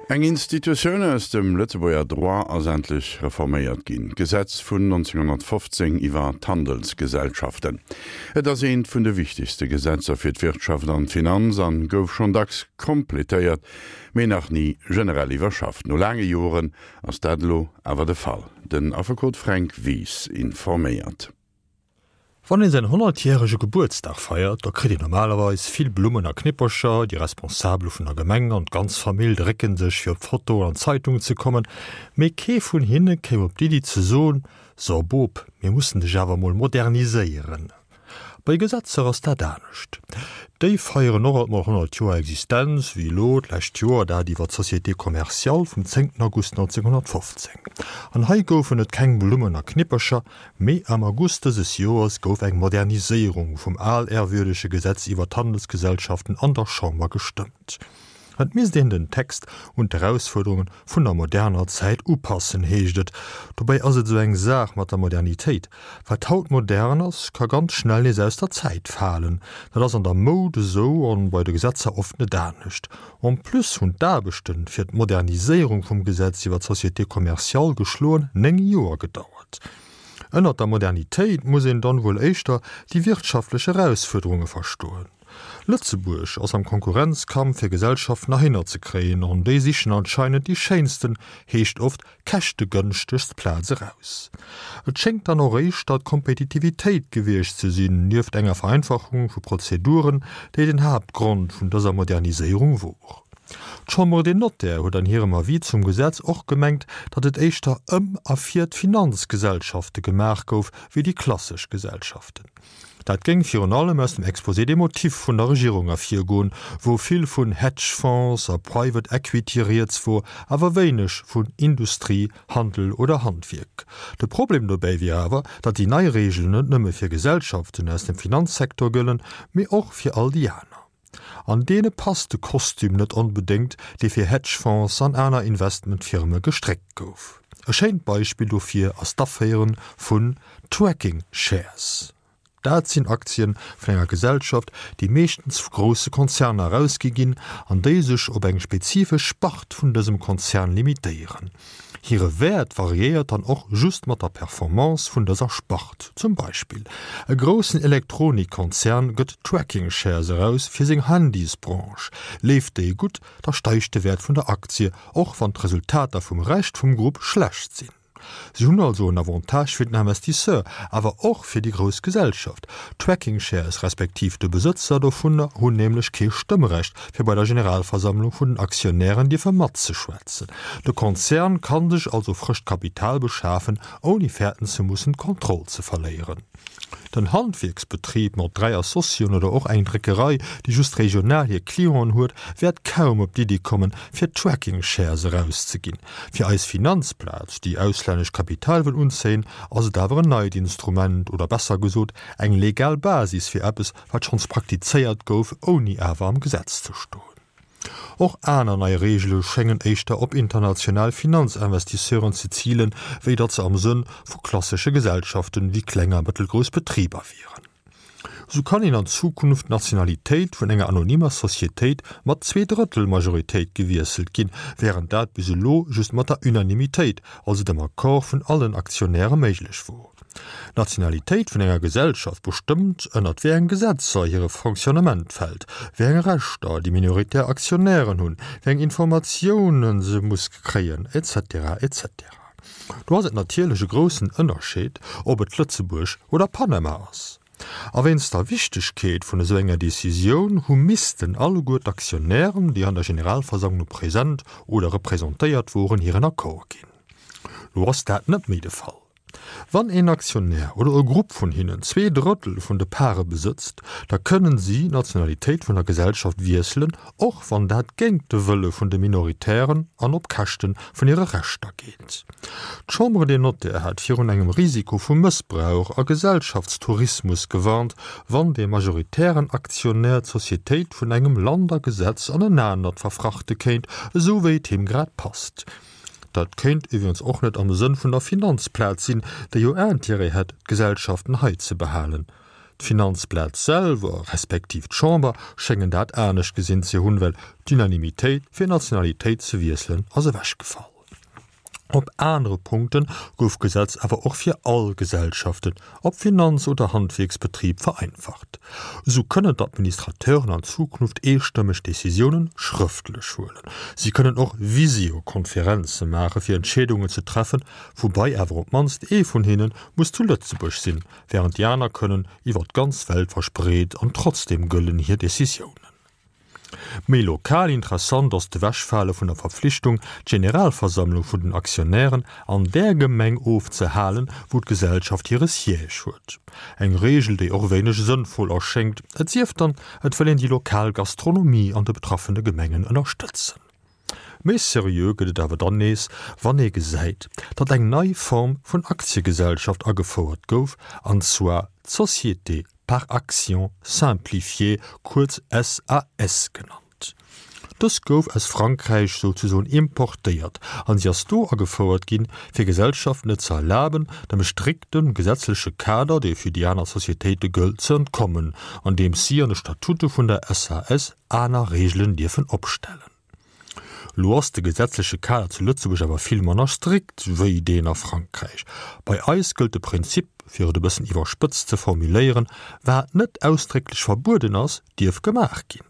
Eng Institutioun aus dem Lëtzebuerger Droit ass endlech reforméiert ginn, d'Gesetz vun 1915 iwwer d'Handelsgesellschaften. Et ass eent vun de wichtegste Gesetzer fir d'Wirtschaft an d'Finanz an gouf schonn dacks completéiert, mee nach ni generell iwwerschafft. No laange Joren ass dat elo awer de Fall. Den Affekot Fränk Wies informéiert. Wann een säin honnertjärege Gebuertsdag feiert, da kritt een normalerweis vill Blummen a Knippercher, déi Responsabel vun der Gemeng an d'ganz Famill drécken sech fir op d'Foto an d'Zeitung ze kommen, mee kee vun hinne kéim op d'Iddi ze soen, So Bop, mir mussen dech awer mol moderniséieren. Bei Gesetzer ass dat anescht. Déi feieren och alt mol 100 Joer Existenz, wéi elo d'lescht Joer dat iwwer d'Société Commerciale vum 10 August 1915. An hei goufen et keng Blummen a Knippercher, Mee am August dëses Joers gouf eng Moderniséierung vum alehrwürdege Gesetz iwwer d'Handelsgesellschaften an der Chamber gestëmmt. Et misst een den Text un d'Erausfuerderunge vun der moderner Zäit upassen, heescht et. Dobäi ass et esou eng Saach mat der Modernitéit, Wat haut modern ass, ka ganz schnell nees aus der Zäit falen. Dat ass an der Moud esou an bei de Gesetzer oft net anescht. En plus hunn d'Aarbechte fir d'Moderniséierung vum Gesetz iwwer d'Société commerciale geschloen 9 Joer gedauert. Ënnert der Modernitéit muss een dann wuel éischter déi wirtschaftlech Erausfuerderunge verstoen. Lëtzebuerg ass am Konkurrenzkampf fir Gesellschaften erhinner ze kréien an déi sichen anscheinend déi schéinsten, heescht oft käschtegënschtegst Plaz eraus. Et schéngt dann och éischter d'Kompetitivitéit gewiescht ze sinn, nieft enger Vereinfachung vu Prozeduren, déi den Haaptgrond vun dëser Moderniséierung wor. D'Chambre des Notaires huet an hirem Avis zum Gesetz och gemengt, datt et éischter ëm a fir d'Finanzgesellschafte gemaach gouf, wéi déi klassesch Gesellschaften. Dat géing virun allem aus dem Exposé des motifs vun der Regierung ervirgoen, wou vill vun Hedge Fonds a Private Equity rieds wor, awer wéineg vun Industrie, Handel oder Handwierk. De Problem dobäi wier awer, datt déi nei Reegelen net nëmme fir Gesellschaften aus dem Finanzsecteur gëllen, mee och fir all déi aner. An deene passt de Kostüm net onbedéngt, dee fir Hedgefonds an aner Investmentfirme gestréckt gouf. E schéint Beispill dofir ass d'Aféiere vun Tracking Shares. Dat sinn Aktien vun enger Gesellschaft, déi meeschtens vu grousse Konzerner erausgi ginn an déi sech op eng spezifesch Spart vun dësem Konzern limitéieren. Hire Wäert variéiert dann och just mat der Performance vun dëser Spart. Zum Beispill, e groussen Elektronikkonzern gëtt Tracking Shares eraus fir seng Handysbranche. Leeft déi gutt, da steigt de Wäert vun der Aktie, och wann d'Resultater vum Rescht vum Grupp schlecht sinn. Si hunn also en Avantage fir den Investisseur, awer och fir déi grouss Gesellschaft. D'Tracking Shares respektiv de Besëtzer dovunner hunn nämlech kee Stëmmrecht, fir bei der Generalversammlung vun den Aktionären dierfe matzeschwätzen. De Konzern kann sech also frëscht Kapital beschafen, ouni fäerten ze mussen, d'Kontroll ze verléieren. Den Handwierksbetrib mat 3 Associen oder och eng Dréckerei, déi just regional hir Clienten huet, wäert kaum op d'Iddi kommen, fir Tracking Shares erauszeginn. Fir eis Finanzplaz, déi auslännescht Kapital wëll unzéien, ass et awer en neit Instrument oder besser gesot eng legal Basis fir eppes, wat schonns praktizéiert gouf, ouni awer am Gesetz ze stoen. Och aner nei Reegele schéngen éischter op international Finanzinvestisseuren ze zilen, wéi datt se am Sënn vu klassesche Gesellschaften wéi kleng a mëttelgrouss Betriber wieren. Sou kann een an Zukunft d'Nationalitéit vun enger anonymer Societéit mat Zweedrëttel-Majoritéit gewiesselt ginn, wärend dat bis elo just mat der Unanimitéit, also dem Accord vun allen Aktionäre méiglech wor. D'Nationalitéit vun enger Gesellschaft bestëmmt, ënnert wéi eng Gesetzer hire Fonctionnement fält, wéi eng Rechter déi minoritär Aktionären hunn, wéi eng Informatiounen se muss kréien, etc. Etc. Do ass et natierlech e groussen Ënnerscheed, ob et Lëtzebuerg oder Panama ass. A wéinst der Wichtegkeet vun esou enger Decisioun hu missten alleguer d'Aktionären, déi an der Generalversammlung present oder representéiert woren, hiren Accord ginn. Lo ass dat net méi de Fall. Wann een Aktionär oder e Grupp vun hinnen 2/3 vun de Pare besëtzt, da kënnen si d'Nationalitéit vun der Gesellschaft wiesselen, och wann dat géint de Wëlle vun de Minoritären an op Käschte vun hire Rechter geet. D'Chambre des Notaires hat virun engem Risiko vu Mëssbrauch a Gesellschaftstourismus gewarnt, wann dee majoritären Aktionär d'Societéit vun engem Land a Gesetz an en anert verfrachte kéint, esou wéi et him grad passt. Dat kéint iwwregens och net am Sënn vun der Finanzplaz sinn, déi jo Intérêt hätt, d'Gesellschaften hei ze behalen. D'Finanzplaz selwer, respektiv d'Chamber, schéngen dat anescht gesinn ze hunn, well d'Unanimitéit fir d'Nationalitéit ze wiesselen ass ewechgefall. Op anere Punkte gouf d'Gesetz awer och fir all Gesellschaften, ob Finanz oder Handwierksbetrib, vereinfacht. Esou kënnen d'Administrateuren an Zukunft eestëmmeg Decisiounen schrëftlech huelen. Si kënnen och Visiokonferenze maache fir Entscheedungen ze treffen, woubai awer op d'mannst ee vun hinne muss zu Lëtzebuerg sinn, wärend déi aner kënnen iwwer d'ganz Welt verspreet an trotzdeem gëllen hir Decisiounen. Méi lokal interessant ass d'Ewechfale vun der Verpflichtung, d'Generalversammlung vun den Aktionären an där Gemeng ofzehalen, wou d'Gesellschaft hire Siège huet. Eng Reegel, déi och wéineg sënnvoll erschéngt, et sief dann, et wëll een déi lokal Gastronomie an de betraffene Gemengen ënnerstëtzen. Méi seriö gëtt et awer dann nees, wann ee gesäit, datt eng nei Form vun Aktiegesellschaft agefouert gouf, an zwar d'Société par actions simplifiée, kuerz SAS genannt. Dës gouf aus Frankräich souzesoen importéiert an si ass do agefouert ginn, fir Gesellschaften et ze erlaben, dem strikte gesetzleche Kader, dee fir déi aner Societéite gëllt, ze entkommen, andeems si an de Statute vun der SAS aner Reegelen dierfen opstellen. Lo ass de gesetzleche Kader zu Lëtzebuerg awer vill manner strikt wéi deen a Frankräich. Bei eis gëllt de Prinzip, fir et e bëssen iwwerspëtzt ze formuléieren, Wat net ausdrécklech verbueden ass, dierf gemaach ginn.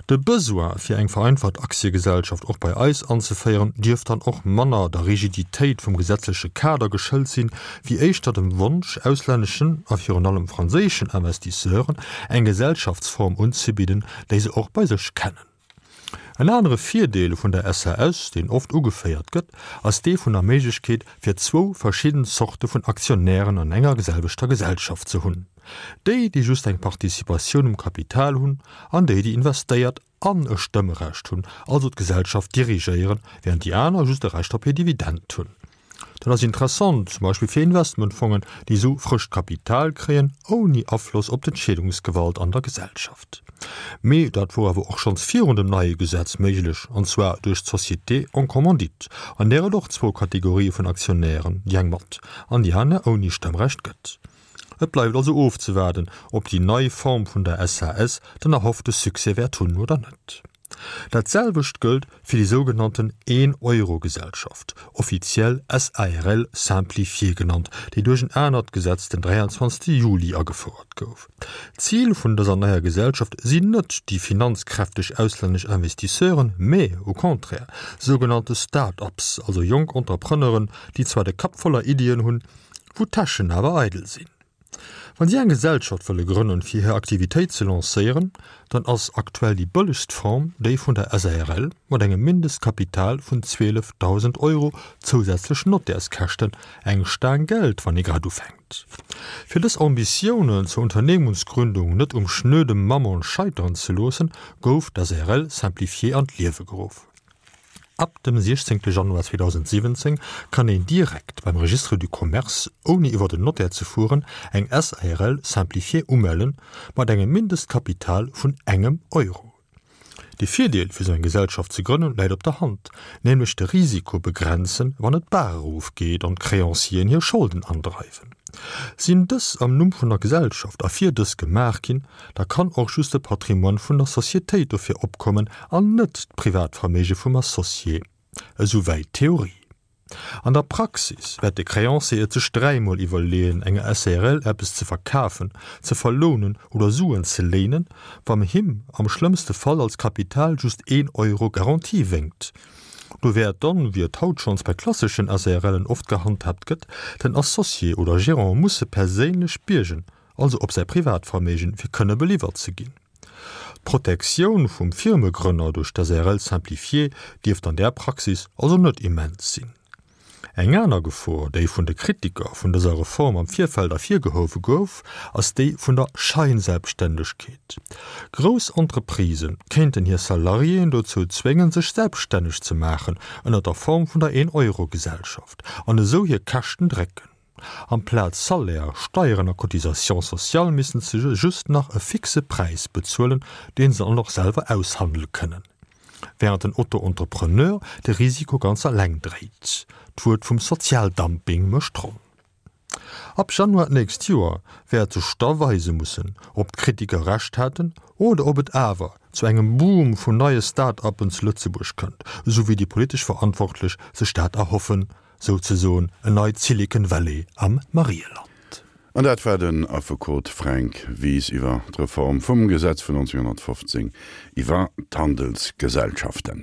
De Besoin, fir eng vereinfacht Aktiegesellschaft och bei eis anzeféieren, dierft dann och manner der Rigiditéit vum gesetzleche Kader geschëlt sinn, wéi éischter dem Wonsch, auslänneschen a virun allem franséischen Investisseuren eng Gesellschaftsform unzebidden, déi se och bei sech kennen. En anere Virdeel vun der SAS, deen oft ugeféiert gëtt, ass dee vun der Méiglechkeet, fir zwou verschidden Zorte vun Aktionären an enger selwechter Gesellschaft ze hunn, déi, déi just eng Participatioun um Kapital hunn, an déi, déi investéiert an e Stëmmrecht hunn, also d'Gesellschaft dirigéieren, während déi aner just e Recht op hir Dividend hunn. Dat ass interessant, zum Beispill fir Investmentfongen, déi esou frëscht Kapital kréien, ouni Afloss op d'Entscheedungsgewalt an der Gesellschaft. Mee dat wor awer och schonns virun dem neie Gesetz méiglech, an zwar duerch d'Société en commandite, an där et och zwou Kategorië vun Aktionären, déi eng mat an déi aner ouni Stëmmrecht gëtt. Et bleift also ofzewaarden, ob déi nei Form vun der SAS den erhoffte Succès wäert hunn oder net. Dat selwecht gëllt fir déi sougenannten Een-Euro-Gesellschaft, offiziell SARL simplifiée genannt, déi duerch en anert Gesetz den 23 Juli agefouert gouf. D'Zil vun dëser neier Gesellschaft sinn net déi finanzkräfteg auslännesch Investisseuren, mä au contraire sougenannte Start-ups, also jonk Entrepreneuren, déi zwar de Kapp voller Iddien hunn, wou d'Täschen awer eidel sinn. Wann si eng Gesellschaft wëlle grënnen, fir hir Aktivitéit ze lancéieren, dann ass aktuell déi bëllegst Form déi vun der SARL mat engem Mindestkapital vun 12.000 Euro, zousätzlech Nottärskäschten, eng Staang Geld, wann ee grad ufänkt. Fir dës Ambitiounen zur Unternehmungsgründung net um schnöde Mammon scheiteren ze loossen, gouf d'SARL simplifiée an d'Liewe geruff. Ab dem 16 Januar 2017 kann een direkt beim Registre du Commerce, ouni iwwer den Notaire ze fueren, eng SARL simplifiée umellen, mat engem Mindestkapital vun engem Euro. De Virdeel fir sou eng Gesellschaft ze grënnen läit op der Hand, nämlech de Risiko begrenzen, wann et d'Bar erof geet an d'Créancieren hir Scholden andreiwen. Sinn dës am Numm vun der Gesellschaft a fir dës gemaach ginn, da kann och just de Patrimoine vun der Societéit dofir opkommen an net d'Privatverméige vum Associé. Esou wäit d'Theorie. An der Praxis wäert de Créancier et sech dräimol iwwerleeën, enger SARL eppes ze verkafen, ze verlounen oder Suen ze léinen, wann him am schlëmmste Fall als Kapital just een Euro Garantie wénkt. Do wäert dann, wéi et haut schonns bei klasseschen SARLen oft gehandhaabt gëtt, den Associé oder Gérant musse perséinlech biergen, also op säi Privatverméigen, fir kënne beliwwert ze ginn. D'Protektioun vum Firmegrënner duerch d'SARL simplifiée dierft an där Praxis also net immens sinn. Eng aner Gefor, déi vun de Kritiker vun dëser Reform am Virfeld ervirgehuewe gouf, ass déi vun der Scheinselbstständegkeet. Grouss Entreprisë kéinten hir Salariéen dozou zwéngen, sech selbststänneg ze maachen ënner der Form vun der Een-Euro-Gesellschaft an esou hir Käschten drécken. Amplaz Salaire, Steieren a Cotisations sociales missten se just nach e fixe Präis bezuelen, deen se dann och selwer aushandele kënnen. Während den Auto-Entrepreneur de Risiko ganz alleng dréit. D'Wuert vum Sozialdumping mécht d'Ronn. Ab Januar d'nächst Joer wäert sech da weise mussen, ob d'Kritiker Recht haten oder ob et awer zu engem Boom vun neie Start-uppen zu Lëtzebuerg kënnt, esou wéi déi politesch Verantwortlech sech dat erhoffen, souzesoen en neit Silicon Valley am Marieland. An dat war den Affekot Fränk Wies iwwer d'Reform vum Gesetz vun 1915 iwwer d'Handelsgesellschaften.